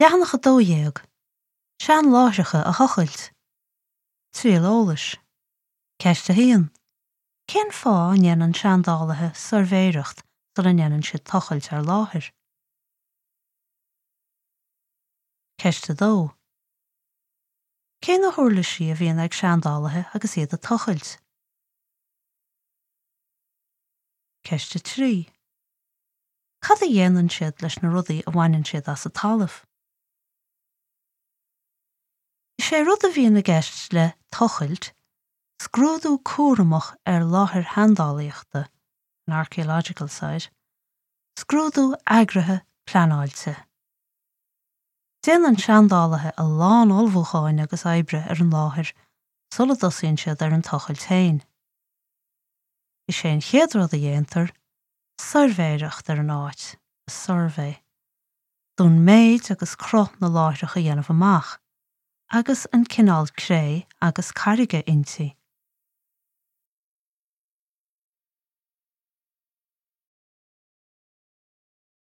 Leathanach 12, Seanláithreacha a thochailt. Triail eolais. Ceist 1. Cén fáth a ndéanann seandálaithe suirbhéireacht sula ndéanann siad tochailt ar láthair? Ceist 2. Cé na huirlisí a bhíonn ag seandálaithe agus iad ag tochailt? Ceist 3. Cad a dhéanann siad leis na rudaí a bhaineann siad as an talamh? Is é rud a bhíonn i gceist le tochailt, scrúdú cúramach ar láthair sheandálaíochta, an archaeological site, scrúdú eagraithe pleanáilte. Déanann seandálaithe a lán ullmhúcháin agus oibre ar an láthair sula dtosaíonn siad ar an tochailt féin. Is é an chéad rud a dhéantar, suirbhéireacht ar an áit, a survey, d'fhonn méid agus cruth na láithreach a dhéanamh amach, agus an cineál cré agus carraige inti.